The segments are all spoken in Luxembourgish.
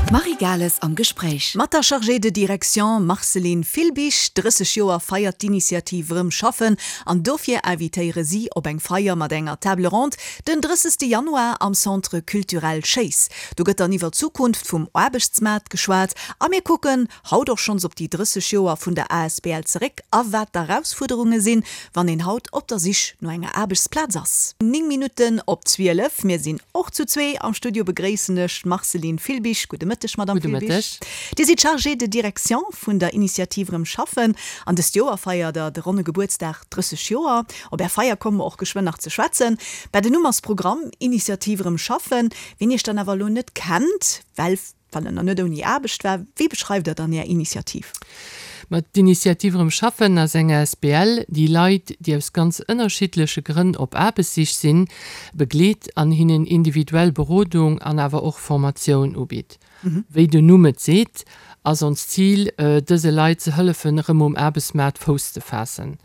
D'Marie Gales am Gespréich. Mat der Chargée de direction Marceline Filbig. 30 Joer feiert d'Initiativ Rëm schaffen an dofir invitéiere si op eng Feier mat enger Table ronde den 30. Januar am Centre Culturel Schéiss. Do gëtt dann iwwer d'Zukunft vum Aarbechtsmaart geschwat a mir kucken haut och schonns op déi 30 Joer vun der asbl zeréck a wat d'Erausfuerderunge sinn, wann een haut op der Sich no enger Aarbechtsplaz ass. 9 Minutten op 12, mir sinn och zu zwee am Studio, begréissen ech d'Marceline Filbig. Gudde Mëtteg, Madamm Gudde Filbig. Mëtteg. Dir sidd Chargée de direction vun der Initiative Rëm schaffen an dëst Joer feiert der de ronne Gebuertsdag, 30 Joer. Op är Feier komme mer och geschwënn nach ze schwätzen. Mä den Numm ass Programm, Initiative Rëm schaffen. Wien iech dann awer elo net kennt, well Wann en nach net ouni Aarbecht war, wéi beschreift Der dann Är Initiativ? Ma d'Initiativ Erëm schaffen ass eng asbl, déi Leit, déi aus ganz ënnerschiddleche Grënn op Aarbechtssich sinn, begleet an hinnen individuell Berodung an awer och Formatioun ubitt. Wéi den Numm et seet, ass onst Zil, dëse Leit ze hëllefen, erëm um Aarbechtsmaart Fouss ze faassen.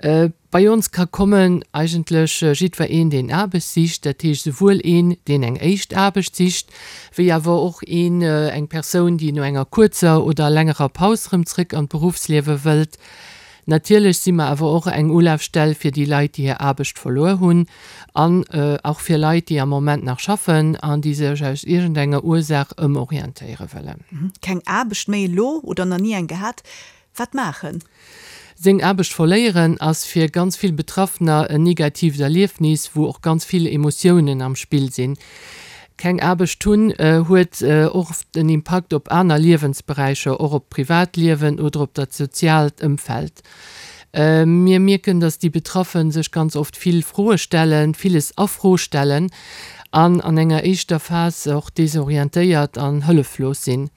Bei ons ka kommen eigentlech jiddwer een, deen Aarbecht sicht, dat heescht esouwuel een, deen eng éischt Aarbecht sicht, wéi awer och een, eng Persoun, déi no enger kuerzer oder längerer Paus erëm zrëck an d'Beruffsliewe wëllt. Natierlech si mer awer och eng Ulafstell fir déi Leit, déi hir Aarbecht verluer hunn an och fir Leit, déi am Moment nach schaffen an déi sech aus iergendenger Ursaach ëmorientéiere wëllen. Keng Aarbecht méi elo oder nach ni eng gehat, Wat maachen? Seng Aarbecht verléieren ass fir ganz vill Betraffener en negatiivt Erliefnis, wou och ganz vill Emotiounen am Spill sinn. Keng Aarbecht hunn huet och oft en Impakt op aner Liewensberäicher, och op d'Privatliewen oder op dat soziaalt Ëmfeld. Mir mierken, dass déi Betraffen sech ganz oft vill Froe stellen, villes a Fro stellen an an enger éischter Phas och desorientéiert an hëlleflos sinn.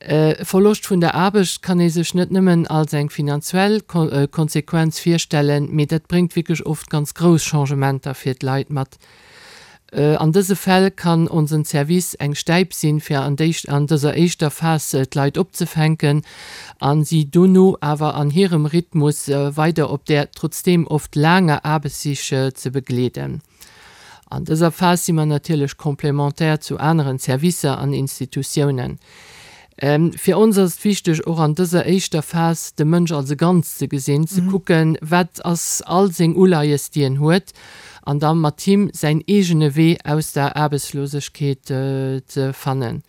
E Verloscht vun der Aarbecht kann ee sech net nëmmen als eng finanzuell Konsequenz virstellen, mee dat bréngt wierklech oft ganz grouss Changementer fir d'Leit mat. An dëse Fäll kann onsen Service eng Stäip sinn, fir an dëser éischter Phas d'Leit opzefänken a si dono awer an hirem Rhythmus weider op där trotzdeem oft laanger Aarbechtssich ze begleeden. An dëser Phas si mer natierlech complémentaire zu aneren Servicer an Institutiounen. Fir ons ass et wichteg, och an dëser éischter Phas de Mënsch als e Ganzt ze gesinn, ze kucken, wat ass all seng Uleies, déi en huet, an da mat him säin eegene Wee aus der Aarbechtslosegkeet ze fannen.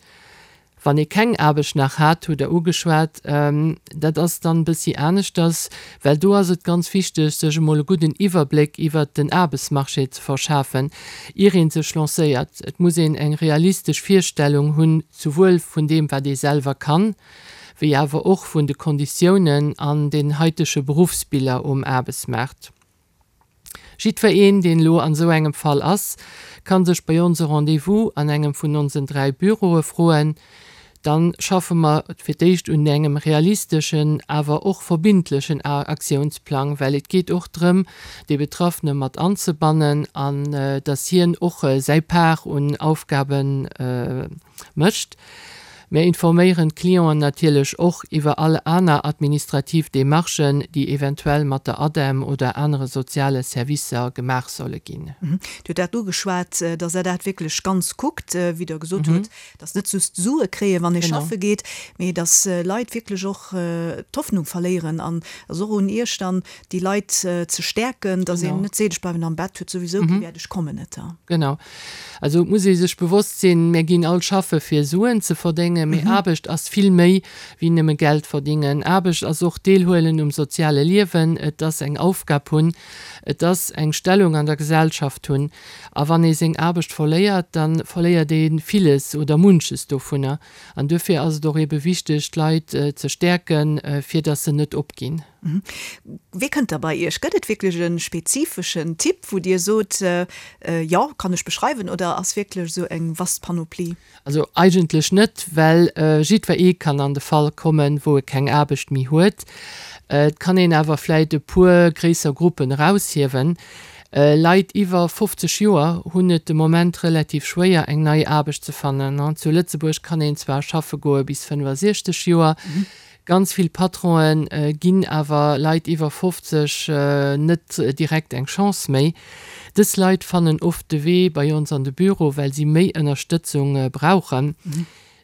Wann ee keng Aarbecht nach hat, hutt Der ugeschwat, dat ass dann e bëssi aneschters, well do ass et ganz wichteg, sech emol e gudden Iwwerbléck iwwert den Aarbechtsmarché ze verschafen, ier ee sech lancéiert. Et muss een eng realistesch Virstellung hunn, souwuel vun deem, wat ee selwer kann, wéi awer och vun de Konditiounen an den haitege Beruffsbiller um Aarbechtsmaart. Jiddwer een, deen elo an esou engem Fall ass, kann sech bei ons e Rendez-vous an engem vun onsen 3 Büroe froen. Dann schaffe mer fir d'éischt un engem realisteschen, awer och verbindlechen Aktiounsplang, well et geet och drëm, dee Betraffene mat anzebannen an dass hien och säi Part un Aufgaben mécht. Mir informéieren d'Clienten natierlech och iwwer all aner administrativ Demarchen, déi eventuell mat der ADEM oder anere soziale Servicer gemaach solle ginn. Dir hutt dat ugeschwat, dass Der dat wierklech ganz kuckt, wéi Der gesot hutt, dass net just Sue kréien, wann ee schaffe geet, mee dass Leit wierklech och d'Hoffnung verléieren. An et ass och un Iech dann, déi Leit ze stäerken, dass een net seet, ech bleiwen am Bett, huet souwisou kee Wäert, ech kommen net. Genau. Also et muss ee sech bewosst sinn, mir ginn all schaffe fir Suen ze verdéngen, mee Aarbecht ass vill méi wéi nëmme Geld verdingen. Aarbecht ass och Deelhuelen um soziale Liewen, et ass eng Aufgab hunn, et ass eng Stellung an der Gesellschaft hunn. A wann ee seng Aarbecht verléiert, da verléiert ee villes oder munches dovunner. An duerfir ass et och eebe wichteg, d'Leit ze stäerken, fir datt se net opginn. Wee kënnt da bei Iech? Gëtt et wierklech e spezifeschen Typ, wou Dir sot, jo, kann ech beschreiwen, oder ass wierklech esou eng vast Panoplie? Also eigentlech net, well jiddwer ee kann an de Fall kommen, wou e keng Aarbecht méi huet. Et kann een awer vläit e puer gréisser Gruppen eraushiewen. Leit iwwer 50 Joer hunn et de Moment relativ schwéier, eng nei Aarbecht ze fannen. Zu Lëtzebuerg kann een zwar schaffe goe bis 65 Joer, Ganz vill Patronen ginn awer Leit iwwer 50 net direkt eng Chance méi. Dës Leit fannen oft de Wee bei ons an de Büro, well si méi Ënnerstëtzung brauchen.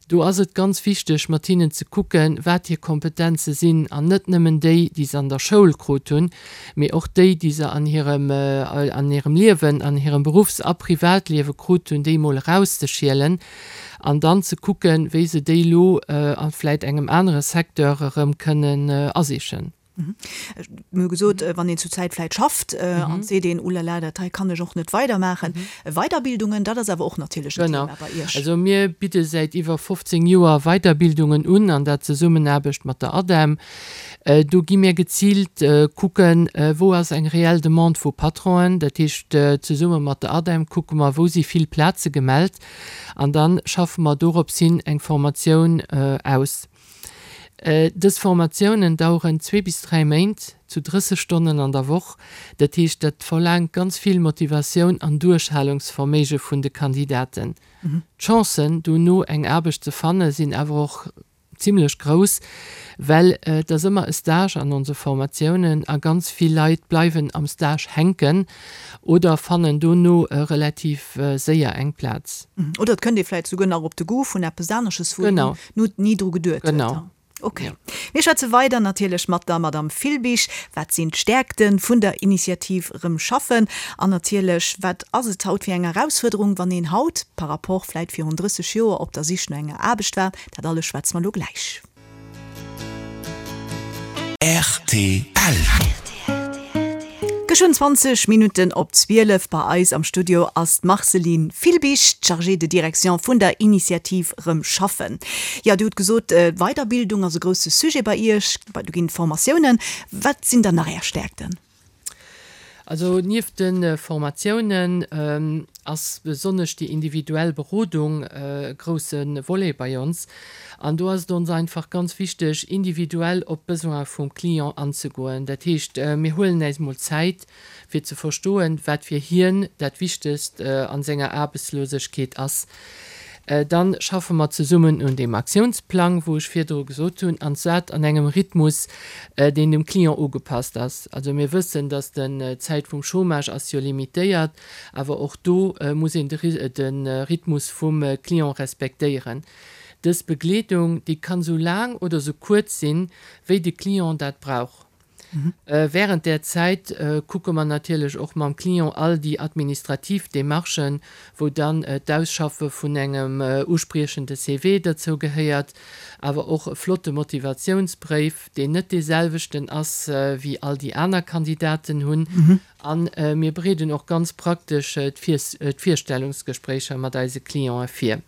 Do ass et ganz wichteg, mat hinnen ze kucken, wat hir Kompetenze sinn, an net nëmmen déi, déi se an der Schoul krut hunn, mee och déi, déi se an hirem, an hirem Liewen, an hirem Beruffs a Privatliewe krut hunn, déi emol erauszeschielen an dann ze kucken, wéi se déi elo a vläit engem anere Secteur erëm kënnen asichen. Mir hu gesot, wann een zur Zäit vläit schafft an et seet een, Ulala, dat hei kann ech och net weidermaachen. Weiderbildungen, dat ass awer och natierlech en Thema bei Iech. Genau. Also mir bidde säit iwwer 15 Joer Weiderbildungen un, an dat Zesummenaarbecht mat der ADEM. Do gi mir geziilt kucken, wou ass eng reell Demande vu Patronen. Dat heescht, zesumme mat der ADEM kucke mer, wou si vill Plaze gemellt an da schaffe mer dorops hin eng Formatioun aus. Dës Formatiounen daueren zwee bis 3 Méint, zu 30 Stonnen an der Woch. Dat heescht, dat verlaangt ganz vill Motivatioun an Duerchhalungsverméige vun de Kandidaten. D'Chancen, dono eng Aarbecht ze fanne sinn awer och zimlech grouss, well et ass ëmmer e Stage an onse Formatiounen a ganz vill Leit bleiwen am Stage hänken oder fannen dono relativ séier eng Plaz. Oder et kënnt ee vläicht souguer nach op de Goût vun eppes anesches, wou een ni dru geduet huet. Genau. Ok. Mir schwätze weider natierlech mat der Madame Filbig. Wat sinn d'Stäerkte vun der Initiativ Rëm schaffen? An natierlech, wat ass et haut fir eng Erausfuerderung, wann een haut par rapport vläit virun 30 Joer op der Sich no enger Aarbecht war? Dat alles schwätze mer elo gläich. Rtl. Geschwënn 20 Minutten op 12. Bei eis am Studio ass d'Marceline Filbig, d'Chargée de direction vun der Initiativ Rëm Schaffen. Jo, Dir hutt gesot, Weiderbildung ass e grousse Sujet bei Iech, do ginn et Formatiounen. Wat sinn dann nach Är Stäerkten? Also nieft de Formatiounen ass besonnesch déi individuell Berodung e grousse Volet bei ons. An do ass et ons einfach ganz wichteg, individuell op d'Besoin vum Client anzegoen. Dat heescht, mir huelen äis mol Zäit, fir ze verstoen, wat fir hien dat Wichtegst a senger Aarbechtslosegkeet ass. Dann schaffe mer zesummen un deem Aktiounsplang, wou ech virdru gesot hunn, an dat an engem Rhythmus, deen dem Client ugepasst ass. Also mir wëssen, dass den d'Zäit vum Chômage ass jo limitéiert, awer och do muss een de Rhythmus vum Client respektéieren. Dës Begleedung, déi kann esou laang oder esou kuerz sinn, wéi de Client dat brauch. Während där Zäit kucke mer natierlech och mam Client all déi administrativ Démarchen, wou dann d'Ausschaffe vun engem uspriechende CV derzou gehéiert, awer och e flotte Motivatiounsbréif, deen net dee selwechten ass wéi all déi aner Kandidaten hunn. A mir bereeden och ganz praktesch d'Virstellungsgespréicher mat eise Clientë vir.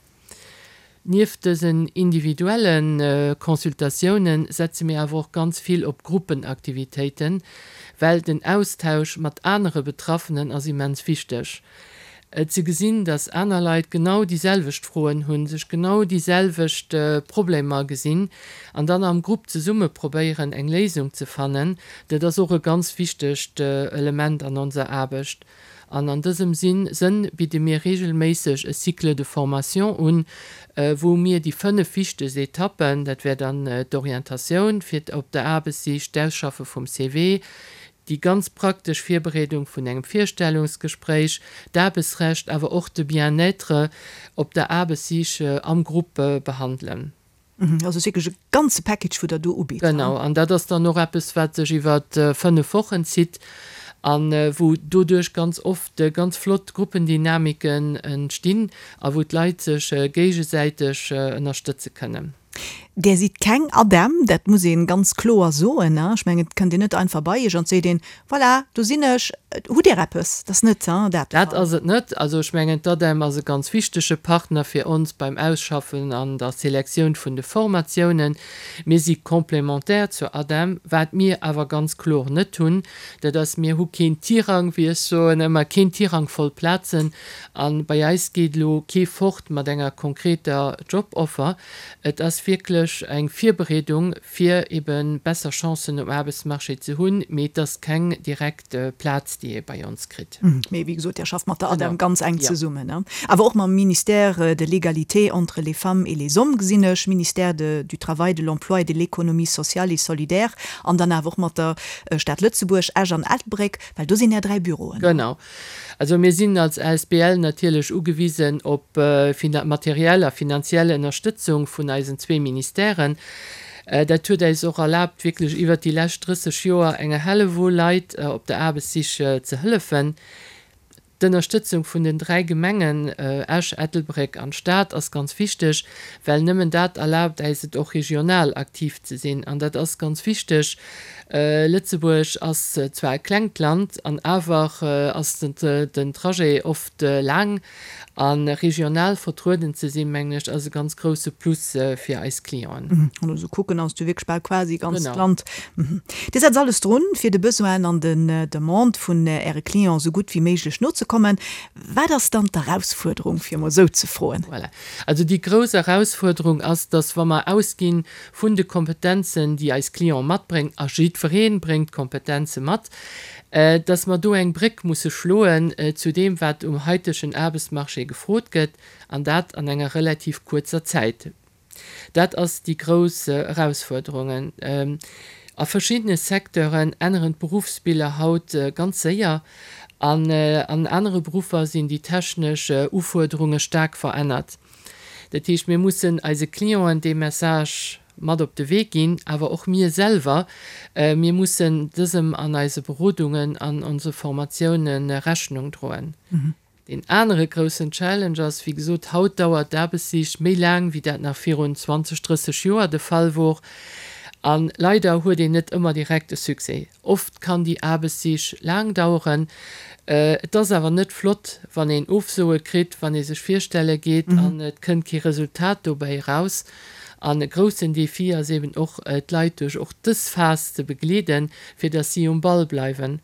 Nieft dësen individuelle Consultatioune setze mir awer och ganz vill op Gruppenaktivitéiten, well den Austausch mat anere Betraffenen ass immens wichteg. Ze gesinn, dass aner Leit genau déi selwecht Froen hunn, sech genau déi selwecht Problemer gesinn an dann am Grupp zesumme probéieren eng Léisung ze fannen, dat ass och e ganz wichtegt Element an onser Aarbecht. An an dësem Sënn bidde mir regelméisseg e Cycle de formation un, wou mir déi 5 wichtegst Etappen, dat wär dann d'Orientatioun fir op der Aarbechtssich, d'Ausschaffe vum CV, déi ganz praktesch Virbereedung vun engem Virstellungsgespréich, d'Aarbechtsrecht, awer och de Bien-être op der Aarbechtssich am Grupp behandelen. Also wierklech e ganze Package, wou Der do ubitt. Genau, an dat ass dann och eppes, wat sech iwwer 5 Wochen zitt a wou doduerch ganz oft ganz flott Gruppendynamiken entstinn a wou d'Leit sech géigesäiteg ënnerstëtze kënnen. Där sidd keng ADEM, dat muss ee ganz kloer soen. Ech mengen, et kënnt een net einfach bei Iech an et seet een, Voilà, do sinn ech. Hutt Dir eppes? Dat ass net dat de Dat Fall. ass et net. Also ech mengen, d'ADEM ass e ganz wichtege Partner fir ons beim Ausschaffen an der Selektioun vun de Formatiounen. Mir si complémentaire zur ADEM. Wat mir awer ganz kloer net hunn, dat ass, mir hu keen Tirang, wéi ech soen ëmmer, keen Tirang voll Plazen. A bei eis geet elo kee fort mat enger konkreter Joboffer. Et ass wierklech. wierklech eng Virbereedung, fir ebe besser Chancen um Aarbechtsmarché ze hunn, mee et ass keng direkt Plaz, déi ee bei ons kritt. Mee wéi gesot, Dir schafft mat der ADEM ganz enk zesummen, awer och mam Ministère de l'Égalité entre les femmes et les hommes, gesinn ech, Ministère de du Travail, de l'Emploi et de l'Économie sociale et solidaire an dann awer och mat der Stad Lëtzebuerg, Esch an Ettelbréck, well do sinn Är 3 Büroen. Genau. Also mir sinn als Asbl natierlech ugewisen op materiell a finanziell Ënnerstëtzung vun eisen zwee Ministèren. Dat huet äis och erlaabt, wierklech iwwert déi lescht 30 Joer enger Hellewull Leit op der Aarbechtssich ze hëllefen. D'Ënnerstëtzung vun den 3 Gemengen Esch, Ettelbréck an Stad ass ganz wichteg, well nëmmen dat erlaabt äis et och regional aktiv ze sinn. An dat ass ganz wichteg. Lëtzebuerg ass zwar e klengt Land an awer ass den Trajet oft laang. A regional vertrueden ze sinn, mengen ech, ass e ganz grousse Plus fir eis Clienten. Wann ech esou kucken, ass du wierklech bal quasi ganz d'Land. Dir setzt alles drun, fir de Besoinen an den Demandë vun Äre Clienten esou gutt wéi méiglech nozekommen. Wat ass dann d'Erausfuerderung, fir emol esou ze froen? Voilà. Also déi grouss Erausfuerderung ass, dass wa mer ausgi vun de Kompetenzen, déi eis Clienten matbréngen, a jiddweree bréngt Kompetenze mat, dass mer do eng Bréck musse schloen zu deem, wat um haitegen Aarbechtsmarché gefrot gëtt, an dat an enger relativ kuerzer Zäit. Dat ass déi grouss Erausfuerderung. A verschiddene Secteuren änneren d'Beruffsbiller haut ganz séier an an anere Beruffer sinn déi technesch Ufuerderunge staark verännert. Dat heescht, mir mussen eise Clienten dee Message mat op de Wee ginn, awer och mir selwer, mir mussen dësem an eise Berodungen an onse Formatioune Rechnung droen. Deen anere groussen Challenge ass, wéi gesot, haut dauert d'Aarbechtssich méi laang, wéi dat nach virun 20, 30 Joer de Fall wor. A leider huet een net ëmmer direkt e Succès. Oft kann déi Aarbechtssich laang daueren. Et ass awer net flott, wann een Ofsoe kritt, wann ee sech virstelle geet an et kënnt kee Resultat dobäi eraus. An e groussen Defi ass eben och, d'Leit duerch och dës Phas ze begleeden, fir datt si um Ball bleiwen.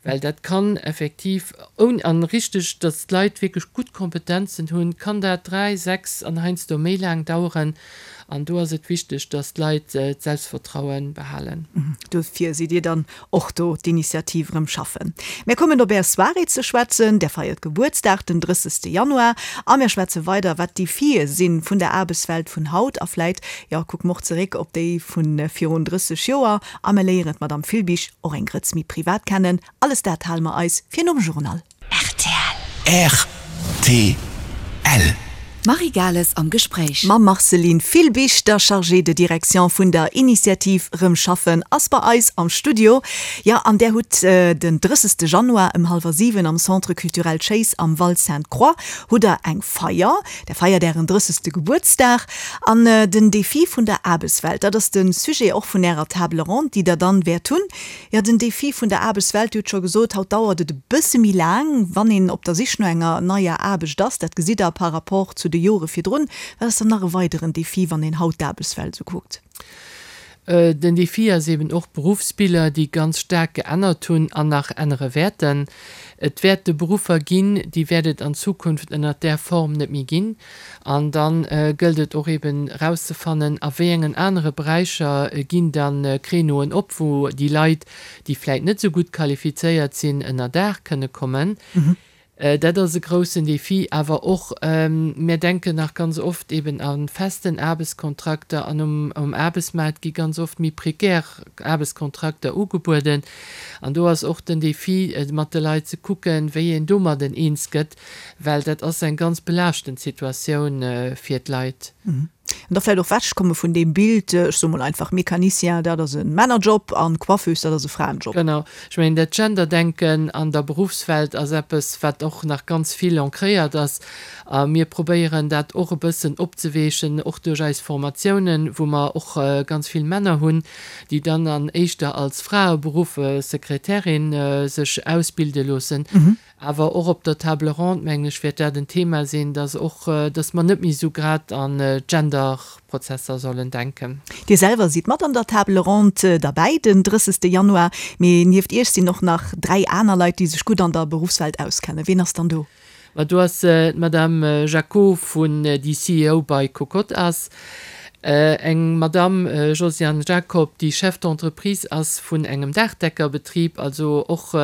Well dat kann effektiv, ouni, an richteg, datt d'Leit wierklech gutt Kompetenzen hunn, kann dat 3, 6 an heiansdo méi laang daueren. An do ass et wichteg, datt d'Leit d'Selbstvertraue behalen. Dofir sidd Dir dann och do, d'Initiativ Erëm schaffen. Mir kommen op Är Soirée ze schwätzen. Där feiert Gebuertsdag den 30. Januar. A mir schwätze weider, wat d'Defie si vun der Aarbechtswelt vun haut. A vläit, jo, kucke mer och zeréck op déi vu virun 30 Joer. A mir léieren d'Madame Filbig och eng Grëtz méi privat kennen. Alles dat hale mer eis fir nom Journal. Rtl. Rtl. D'Marie Gales am Gespréich. Mam Marceline Filbig, der Chargée de direction vun der Initiativ Rëm schaffen, ass bei eis am Studio. Jo, an där hutt den 30. Januar ëm hallwer 7 am Centre Culturel Schéiss am Val Sainte-Croix hutt der eng Feier. Der feiert ären 30. Gebuertsdag. An den Defi vun der Aarbechtswelt, dat ass de Sujet och vun Ärer Table ronde, déi Der dann wäert hunn. Jo, den Defi vun der Aarbechtswelt, Dir hutt scho gesot, haut dauert et e bësse méi laang, wann een op der Sich no enger neier Aarbecht ass. Dat gesitt Der par rapport zu de Jore virdrun. Wat ass dann nach e weideren Defi, wann een haut d'Aarbechtswelt esou kuckt? Den Defi ass eben och d'Beruffsbiller, déi ganz staark geännert hunn an nach ännere wäerten. Et wäerte Beruffer ginn, déi wäert et an Zukunft ënnert där Form net méi ginn. An da gëllt et och eben erauszefannen, a wéi engen anere Beräicher ginn da Créneauen op, wou déi Leit, déi vläit net esou gutt qualifizéiert sinn, ënner Daach kënne kommen. Dat ass e groussen Defi. Awer och, mir denken nach ganz oft eben a festen Aarbechtskontrakter an um Aarbechtsmaart gi ganz oft méi prekär Aarbechtskontrakter ugebueden. An do ass och den Defi, mat de Leit ze kucken, wéi een domadden eens gëtt, well dat ass eng ganz belaaschtend Situatioun fir d'Leit. An da vläicht och wechkomme vun deem Bild, ech soe mol einfach, Mécanicien, dat ass e Männerjob an Coiffeuse, dat ass e Fraenjob. Genau. Ech mengen, dat Genderdenken an der Beruffswelt ass eppes, wat och nach ganz vill ancréiert ass. A mir probéieren dat och e bëssen opzeweechen, och duerch eis Formatiounen, wou mer och ganz vill Männer hunn, déi dann an éischter als Fraeberuff, Sekretärin, sech ausbilde loossen. Awer och op der Table ronde, mengen ech, wäert dat en Thema sinn, dass och, dass mer net méi esou grad an Genderprozesser sollen denken. Dir selwer sidd mat an der Table ronde derbäi den 30. Januar, mee nieft Iech sinn och nach 3 aner Leit, déi sech gutt an der Beruffswelt auskennen. Ween ass dann do? Ma do ass d'Madame Jacquot vun, déi CEO bei Cocotte ass. Eng Madamm Josiane Jacob, déi Chef d'entreprise ass vun engem Daachdeckerbetrib, also och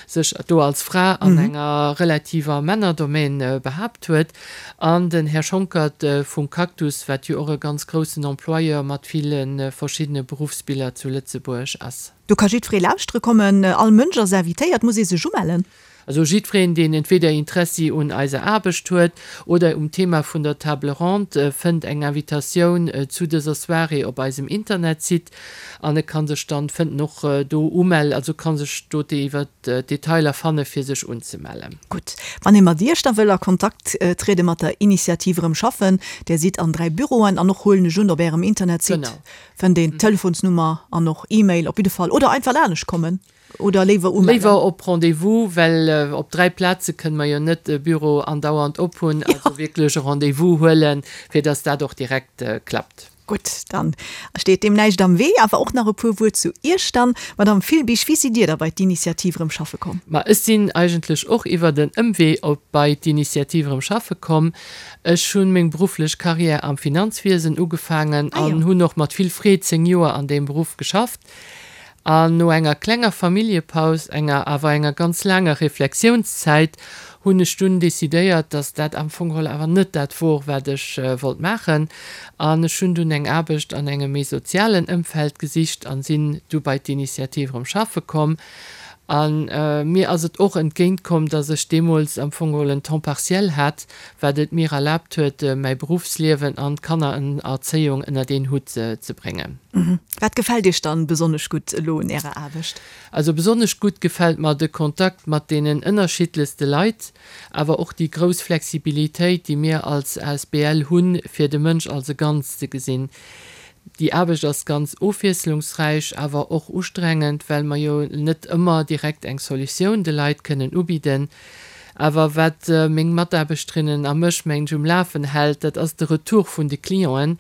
sech do als Fra an enger relativer Männerdomaine behaapt huet, an den Här Schonckert vum Cactus, wat jo och e ganz groussen Employeur mat ville verschiddene Beruffsbiller zu Lëtzebuerg ass. Do ka jiddweree lauschtere kommen, all Mënsch ass invitéiert. Muss ee sech umellen? Also jiddwereen, deen entweder Interessi un eiser Aarbecht huet oder um Thema vun der Table Ronde, fënnt eng Invitatioun zu dëser Soirée op eisem Internetsite an e kann sech dann, fënnt en och do umellen, also kann sech do iwwer d'Detailer fanne fir sech unzemellen. Gutt, wann ee mat Iech da wëll a Kontakt triede mat der Initiativ Erëm schaffen, Där sidd an 3 Büroen an och, huelen ech un, op Ärem Internetsite fënnt een d'Telefonsnummer an och E-Mail op jidde Fall oder einfach laanescht kommen. Oder léiwer umellen? Léiwer op Rendez-vous, well op 3 Plaze kënne mer jo net e Büro andauernd op hunn. Also wierklech e Rendez-vous huelen, fir dass dat och direkt klappt. Gutt, dann steet deem näischt am Wee. Awer och nach e puer Wuert zu Iech dann, Madamm Filbig. Wéi sidd Dir da bei d'Initiativ Erëm schaffe komm? Ma ech sinn eigentlech och iwwert en Ëmwee op bei d'Initiativ Erëm schaffe komm. Ech hunn meng berufflech Carrière am Finanzwiesen ugefaangen an hunn och mat vill Freed 10 Joer an deem Beruff geschafft. An no enger klenger Familljepaus, enger awer enger ganz laanger Reflexiounszäit, hunn ech dunn decidéiert, dass dat am Fong geholl awer net dat wor, wat ech wollt maachen. An ech hunn dunn eng Aarbecht an engem méi sozialen Ëmfeld gesicht an sinn du bei d'Initiative erëm schaffe komm. A mir ass et och entgéint komm, dass ech deemools am Fong geholl en Temps partiel hat, wat et mir erlaabt huet, mäi Beruffsliewen an d'Kannererzéiung ënnert een Hutt ze bréngen. Wat gefält Iech dann besonnesch gutt elo un Ärer Aarbecht? Also besonnesch gutt gefält mer de Kontakt mat deenen ënnerschiddlechste Leit, awer och déi grouss Flexibilitéit, déi mir als asbl hunn, fir de Mënsch als e Ganzt ze gesinn. Déi Aarbecht ass ganz ofwiesslungsräich, awer och ustrengend, well mer jo net ëmmer direkt eng Solutioun de Leit kënnen ubidden. Awer wat meng Mataarbechterinnen a mech, mengen ech, um Lafen hält, dat ass de Retour vun de Clienten,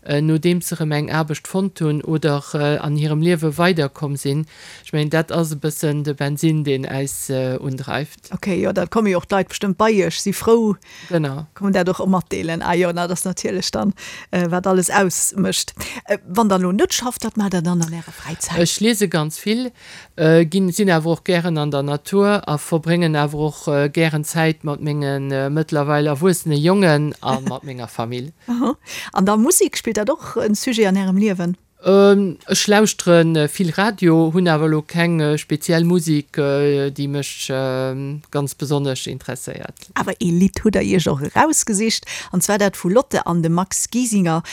nodeems se erëm eng Aarbecht fonnt hunn oder an hirem Liewe weiderkomm sinn. Ech mengen, dat ass e bëssen de Bensinn, deen äis undreift. Ok, jo, da komme jo och d'Leit bestëmmt bei Iech, si frou, Genau. Kommen dat och matdeelen. Ah jo, na, dat ass natierlech dann, wat alles ausmécht. Wann Der elo net schafft, wat maacht Der dann an Ärer Fräizäit? Ech liese ganz vill, ginn, sinn awer och gären an der Natur a verbréngen awer och gären Zäit mat menge mëttlerweil erwuessene Jongen a mat menger Famill. An da Musek, spillt dat och en Sujet an Ärem Liewen? Ech lauschtere vill Radio, hunn awer elo keng speziell Musek, déi mech ganz besonnesch interesséiert. Awer ee Lidd hutt der Iech och erausgesicht, an zwar dat vu Lotte an dem Max Giesinger,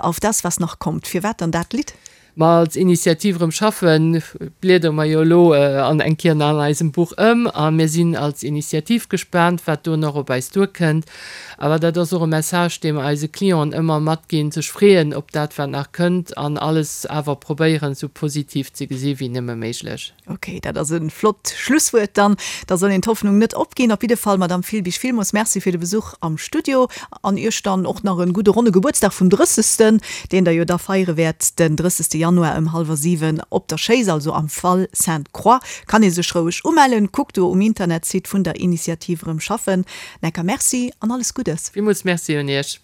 Auf das, was noch kommt. Firwat dann dat Lidd? Ma als Initiativ Erëm schaffen bliedere mer jo elo an eng Kéier an eisem Buch ëm a mir sinn als Initiativ gespaant, wat do nach op eis duerkënnt. Awer dat ass och e Message, dee mer eise Clienten ëmmer matginn, sech freeën op dat, wat nach kënnt an alles awer probéieren, esou positiv ze gesi wéi nëmme méiglech. Ok, dat ass e flott Schlusswuert dann. Da soll een d'Hoffnung net opginn. Op jidde Fall, Madamm Filbig, villmools Merci fir de Besuch am Studio an Iech dann och nach e gudde ronne Gebuertsdag vum Drëssegsten, deen Der jo da feiere wäert den 30. Januar ëm hallwer 7 op der Schéiss, also am Val Sainte-Croix. Kann ee sech roueg umellen. Kuckt do um Internetsite vun der Initiativ Erëm schaffen. Necker Merci an alles Guddes. Villmools Merci un Iech.